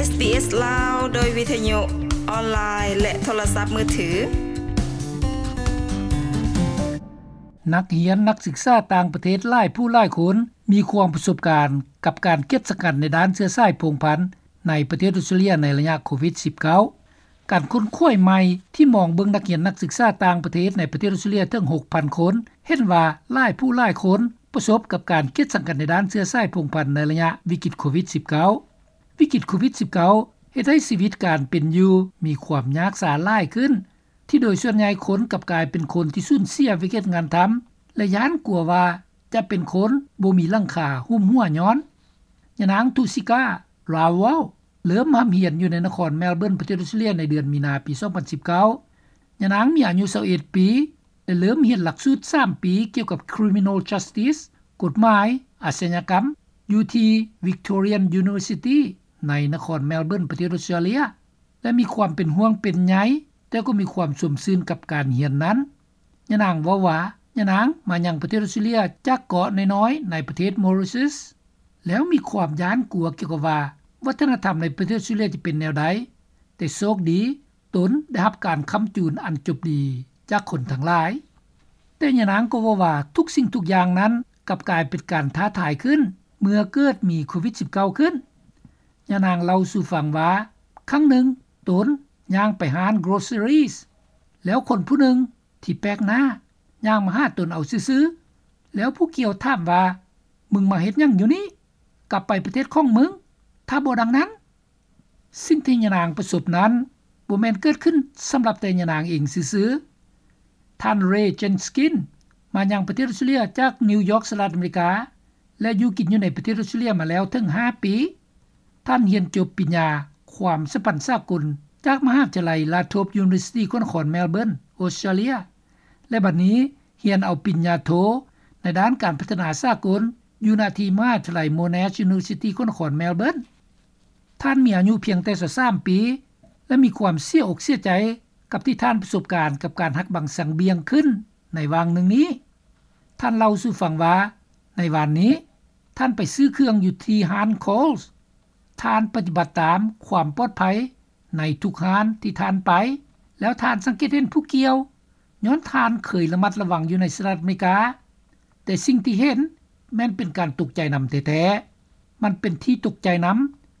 ເອສ ລາວ ໂດຍວິທະຍຸອອນລາຍ ແລະ ໂທລະສັບມືຖື. ນັກຮຽນນັກສຶກສາຕ່າງປະເທດຫຼາຍຜູ້ຫຼາຍຄົນ ມີຄວາມປະສົບການກັບການກຽດສັງກັດໃນດ້ານເຊື້ອສາຍພົງພັນໃນປະເທດອົດສະຕຣາເລຍໃນໄລຍະໂຄວິດສິບເກົ້າ. ການຄົ້ນຄວ້າໃໝ່ທີ່ມອງເບິ່ງນັກຮຽນນັກສຶກສາຕ່າງປະເທດໃນປະເທດອົດສະຕຣາເລຍເຖິງຫົກພັນຄົນ ເຫັນວ່າຫຼາຍຜູ້ຫຼາຍຄົນປະສົບກັບການກຽດສັງກັດໃນດ້ານເຊື້ອສາຍພົງພັນໃນໄລຍະວິກິດໂຄວິດສິບເກົ້າ. ວິກິດໂຄວິດສິບເກົ້າເຮັດໃຫ້ຊີວິດການເປັນຢູ່ມີຄວາມຍາກຊາຫຼາຍຂຶ້ນ ທີ່ໂດຍສ່ວນໃຫຍ່ຄົນກັບກາຍເປັນຄົນທີ່ສູນເສຍວຽກເຮັດງານທຳ ແລະ ຢ້ານກົວວ່າຈະເປັນຄົນບໍ່ມີຫຼັງຄາຫຸ້ມຫົວຍ້ອນ. ຍານາງ Tusika Rawal ເລີ່ມຮ່ຳຮຽນຢູ່ໃນນະຄອນແມລເບີນ ປະເທດອົດສະຕຣາເລຍໃນເດືອນມີນາປີສອງພັນສິບເກົ້າ. ຍານາງມີອາຍຸຊາວເອັດປີ ແລະ ເລີ່ມຮຽນຫຼັກສູດສາມປີກ່ຽວກັບ Criminal Justice ກົດໝາຍອາຊະຍາກຳ ຢູ່ທີ່ Victorian University ໃນນະຄອນແມລເບີນ ປະເທດອົດສະຕຣາເລຍ ແລະ ມີຄວາມເປັນຫ່ວງເປັນໃຍ, ແຕ່ກໍມີຄວາມຊົມຊື່ນກັບການຮຽນນັ້ນ. ຍານາງເວົ້າວ່າ ຍານາງມາຍັງປະເທດອົດສະຕຣາເລຍຈາກເກາະນ້ອຍໆໃນປະເທດ Mauritius ແລ້ວມີຄວາມຢ້ານກົວກ່ຽວກັບວ່າ ວັດທະນະທຳໃນປະເທດອົດສະຕຣາເລຍຈະເປັນແນວໃດ, ແຕ່ໂຊກດີ ຕົນໄດ້ຮັບການຄ້ຳຈູນອັນຈົບດີຈາກຄົນທັງຫຼາຍ. ແຕ່ຍານາງກໍເວົ້າວ່າ ທຸກສິ່ງທຸກຢ່າງນັ້ນກັບກາຍເປັນການທ້າທາຍຂຶ້ນ ເມື່ອເກີດມີໂຄວິດສິບເກົ້າຂຶ້ນ. ຍານາງເລົ່າສູ່ຟັງວ່າ ຄັ້ງໜຶ່ງຕົນຍ່າງໄປຮ້ານ groceries ແລ້ວຄົນຜູ້ໜຶ່ງທີ່ແປກໜ້າຍ່າງມາຫາຕົນເອົາຊື່ໆ ແລ້ວຜູ້ກ່ຽວຖາມວ່າ ມຶງມາເຮັດຫຍັງຢູ່ນີ້? ກັບໄປປະເທດຂອງມຶງ ຖ້າບໍ່ດັ່ງນັ້ນ. ສິ່ງທີ່ຍານາງປະສົບນັ້ນ ບໍ່ແມ່ນເກີດຂຶ້ນສຳລັບແຕ່ຍານາງເອງຊື່ໆ. ທ່ານ Ray Jenkin ມາຍັງປະເທດອົດສະຕຣາເລຍຈາກນິວຢອກ ສະຫະລັດອາເມລິກາ ແລະ ຢູ່ກິນຢູ່ໃນປະເທດອົດສະຕຣາເລຍມາແລ້ວເຖິງຫ້າປີ. ທ່ານຮຽນຈົບປິນຍາຄວາມສຳພັນສາກົນ ຈາກມະຫາວິທະຍາໄລ Lathrop University ນະຄອນແມລເບີນ ອົດສະຕຣາເລຍ ແລະ ບັດນີ້ຮຽນເອົາປິນຍາໂທໃນດ້ານການພັດທະນາສາກົນ ຢູ່ນະທີ່ມະຫາວິທະຍາໄລ Monash University ນະຄອນແມລເບີນ. ທ່ານມີອາຍຸພຽງແຕ່ຊາວສາມປີ ແລະ ມີຄວາມເສຍອົກເສຍໃຈກັບທີ່ທ່ານປະສົບການກັບການຫັກບັງສັງບ່ຽງຂຶ້ນໃນຫວ່າງໜຶ່ງນີ້. ທ່ານເລົ່າສູ່ຟັງວ່າ ໃນວານນີ້ ທ່ານໄປຊື້ເຄື່ອງຢູ່ທີ່ຮ້ານ Coles. ທ່ານປະຕິບັດຕາມຄວາມປອດໄພໃນທຸກຮ້ານທີ່ທ່ານໄປ ແລ້ວທ່ານສັງເກດເຫັນຜູ້ກ່ຽວ ຍ້ອນທ່ານເຄີຍລະມັດລະວັງຢູ່ໃນສະຫະລັດອາເມລິກາ, ແຕ່ສິ່ງທີ່ເຫັນແມ່ນເປັນການຕົກໃຈນຳແທ້ໆ. ມັນເປັນທີ່ຕົກໃຈນຳ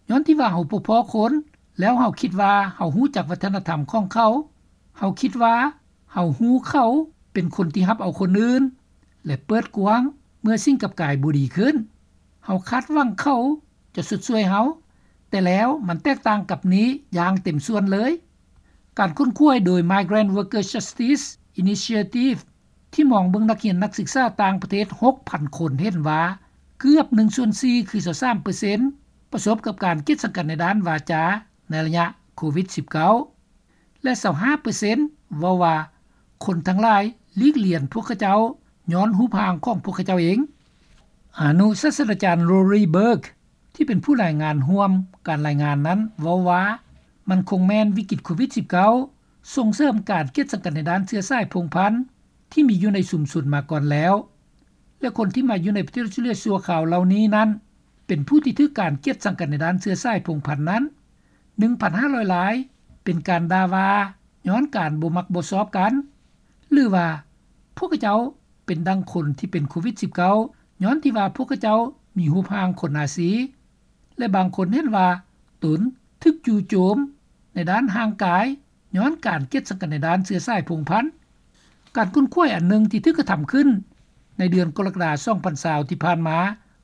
ຍ້ອນທີ່ວ່າເຮົາບໍ່ພໍ້ຄົນ ແລ້ວເຮົາຄິດວ່າເຮົາຮູ້ຈັກວັດທະນະທຳຂອງເຂົາ, ເຮົາຄິດວ່າເຮົາຮູ້ເຂົາເປັນຄົນທີ່ຮັບເອົາຄົນອື່ນ ແລະ ເປີດກວ້າງເມື່ອສິ່ງກັບກາຍບໍ່ດີຂຶ້ນ. ເຮົາຄາດຫວັງເຂົາຈະຊົດຊ່ວຍເຮົາ, ແຕ່ແລ້ວມັນແຕກຕ່າງກັບນີ້ຢ່າງເຕັມສ່ວນເລີຍ. ການຄົ້ນຄວ້າໂດຍ Migrant Workers Justice Initiative ທີ່ມອງເບິ່ງນັກຮຽນນັກສຶກສາຕ່າງປະເທດຫົກພັນຄົນເຫັນວ່າ ເກືອບໜຶ່ງສ່ວນສີ່ ຄືຊາວສາມເປີເຊັນ ປະສົບກັບການກຽດສັງກັດໃນດ້ານວາຈາໃນໄລຍະໂຄວິດສິບເກົ້າ ແລະ ຊາວຫ້າເປີເຊັນເວົ້າວ່າ ຄົນທັງຫຼາຍຫຼີກລຽນພວກເຂົາເຈົ້າຍ້ອນຮູບຮ່າງຂອງພວກເຂົາເຈົ້າເອງ. ອະນຸສາດສະດາຈານ Rory Burke ທີ່ເປັນຜູ້ລາຍງານຮ່ວມການລາຍງານນັ້ນເວົ້າວ່າ ມັນຄົງແມ່ນວິກິດໂຄວິດສິບເກົ້າ ສົ່ງເສີມການກຽດສັງກັດໃນດ້ານເຊື້ອສາຍພົງພັນທີ່ມີຢູ່ໃນຊຸມຊົນມາກ່ອນແລ້ວ ແລະ ຄົນທີ່ມາຢູ່ໃນປະເທດອົດສະຕຣາເລຍຊົ່ວຄາວເຫຼົ່ານີ້ນັ້ນ ເປັນຜູ້ທີ່ຖືກການກຽດສັງກັດໃນດ້ານເຊື້ອສາຍພົງພັນນັ້ນ ໜຶ່ງພັນຫ້າຮ້ອຍລາຍ ເປັນການດ່າວ່າຍ້ອນການບໍ່ມັກບໍ່ຊອບກັນ ຫຼືວ່າພວກເຂົາເຈົ້າເປັນດັ່ງຄົນທີ່ເປັນໂຄວິດສິບເກົ້າ ຍ້ອນທີ່ວ່າພວກເຂົາເຈົ້າມີຮູບຮ່າງຄົນອາຊີ ແລະ ບາງຄົນເຫັນວ່າຕົນຖືກຈູ່ໂຈມໃນດ້ານຮ່າງກາຍ ຍ້ອນການກຽດສັງກັດໃນດ້ານເຊື້ອສາຍພົງພັນ. ການຄົ້ນຄວ້າອັນໜຶ່ງທີ່ຖືກກະທຳຂຶ້ນໃນເດືອນກໍລະກະດາ ສອງພັນຊາວ ທີ່ຜ່ານມາ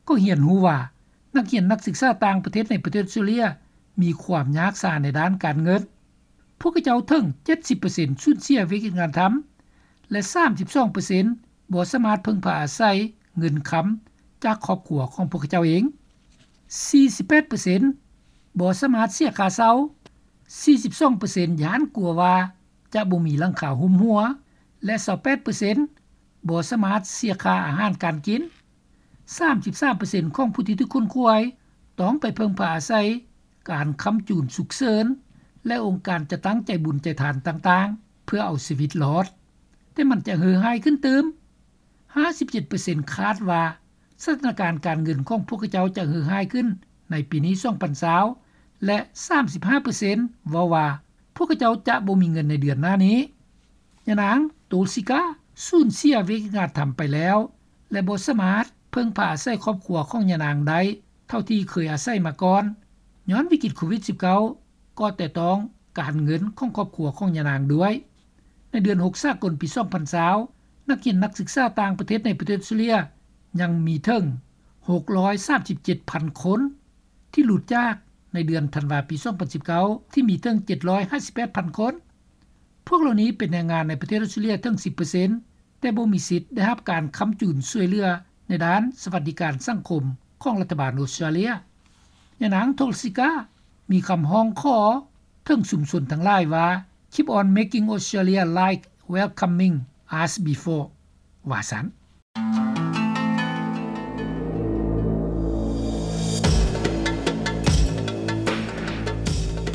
ກໍຮຽນຮູ້ວ່າ ນັກຮຽນນັກສຶກສາຕ່າງປະເທດໃນປະເທດອົດສະຕຣາເລຍມີຄວາມຍາກຊາໃນດ້ານການເງິນ. ພວກເຂົາເຈົ້າເຖິງເຈັດສິບເປີເຊັນສູນເສຍວຽກເຮັດງານທຳ ແລະ ສາມສິບສອງເປີເຊັນບໍ່ສາມາດເພິ່ງພາອາໄສເງິນຄຳຈາກຄອບຄົວຂອງພວກເຂົາເຈົ້າເອງ. ສີ່ສິບແປດເປີເຊັນບໍ່ສາມາດເສຍຄ່າເຊົ່າ, ສີ່ສິບສອງເປີເຊັນຢ້ານກົວວ່າຈະບໍ່ມີຫຼັງຄາຫຸ້ມຫົວ ແລະ ຊາວແປດເປີເຊັນບໍ່ສາມາດເສຍຄ່າອາຫານການກິນ. ສາມສິບສາມເປີເຊັນຂອງຜູ້ທີ່ຖືກຄົ້ນຄວ້າຕ້ອງໄປເພິ່ງພາອາໄສການຄ້ຳຈູນສຸກເສີນ ແລະ ອົງການຈັດຕັ້ງໃຈບຸນໃຈທານຕ່າງໆ ເພື່ອເອົາຊີວິດລອດ. ແຕ່ມັນຈະເຫື່ອຫາຍຂຶ້ນຕື່ມ. ຫ້າສິບເຈັດເປີເຊັນຄາດວ່າສະຖານະການການເງິນຂອງພວກເຂົາເຈົ້າຈະເຫື່ອຫາຍຂຶ້ນໃນປີນີ້ ສອງພັນຊາວ ແລະ ສາມສິບຫ້າເປີເຊັນເວົ້າວ່າ ພວກຂະເຈົ້າຈະບໍ່ມີເງິນໃນເດືອນໜ້ານີ້. ຍານາງ ໂຕລຊິກາ ສູນເສຍວິກາທຳໄປແລ້ວ ແລະ ບໍ່ສາມາດເພິ່ງພາອາໄສຄອບຄົວຂອງຍານາງໄດ້ເທົ່າທີ່ເຄີຍອາໄສມາກ່ອນ ຍ້ອນວິກິດໂຄວິດ-19 ກໍແຕະຕ້ອງການເງິນຂອງຄອບຄົວຂອງຍານາງດ້ວຍ. ໃນເດືອນຫົກສາກົນປີສອງພັນຊາວ ນັກຮຽນນັກສຶກສາຕ່າງປະເທດໃນປະເທດອອສເຕຣເລັຽ ຍັງມີເຖິງຫົກຮ້ອຍສາມສິບເຈັດພັນຄົນ ທີ່ຫຼຸດຈາກໃນເດືອນທັນວາປີສອງພັນສິບເກົ້າ ທີ່ມີເຖິງເຈັດຮ້ອຍຫ້າສິບແປດພັນຄົນ. ພວກເຫຼົ່ານີ້ເປັນແຮງງານໃນປະເທດອອສເຕຣເລັຽເຖິງສິບເປີເຊັນ ແຕ່ບໍ່ມີສິດໄດ້ຮັບການຄ້ຳຈູນຊ່ວຍເຫຼືອໃນດ້ານສະຫວັດດີການສັງຄົມຂອງລັດຖະບານອອສເຕຣເລັຽ. ຍານາງ ໂທລຊິກາ ມີຄຳຮ້ອງຂໍເຖິງຊຸມຊົນທັງຫຼາຍວ່າ Keep on making Australia like welcoming as before ວ່າຊັ້ນ.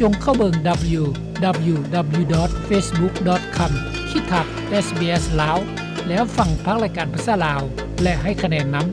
ຈົ່ງເຂົ້າເບິ່ງ www.facebook.com/sbslao ແລ້ວຟັງພາກລາຍການພາສາລາວ ແລະ ໃຫ້ຄະແນນນຳ.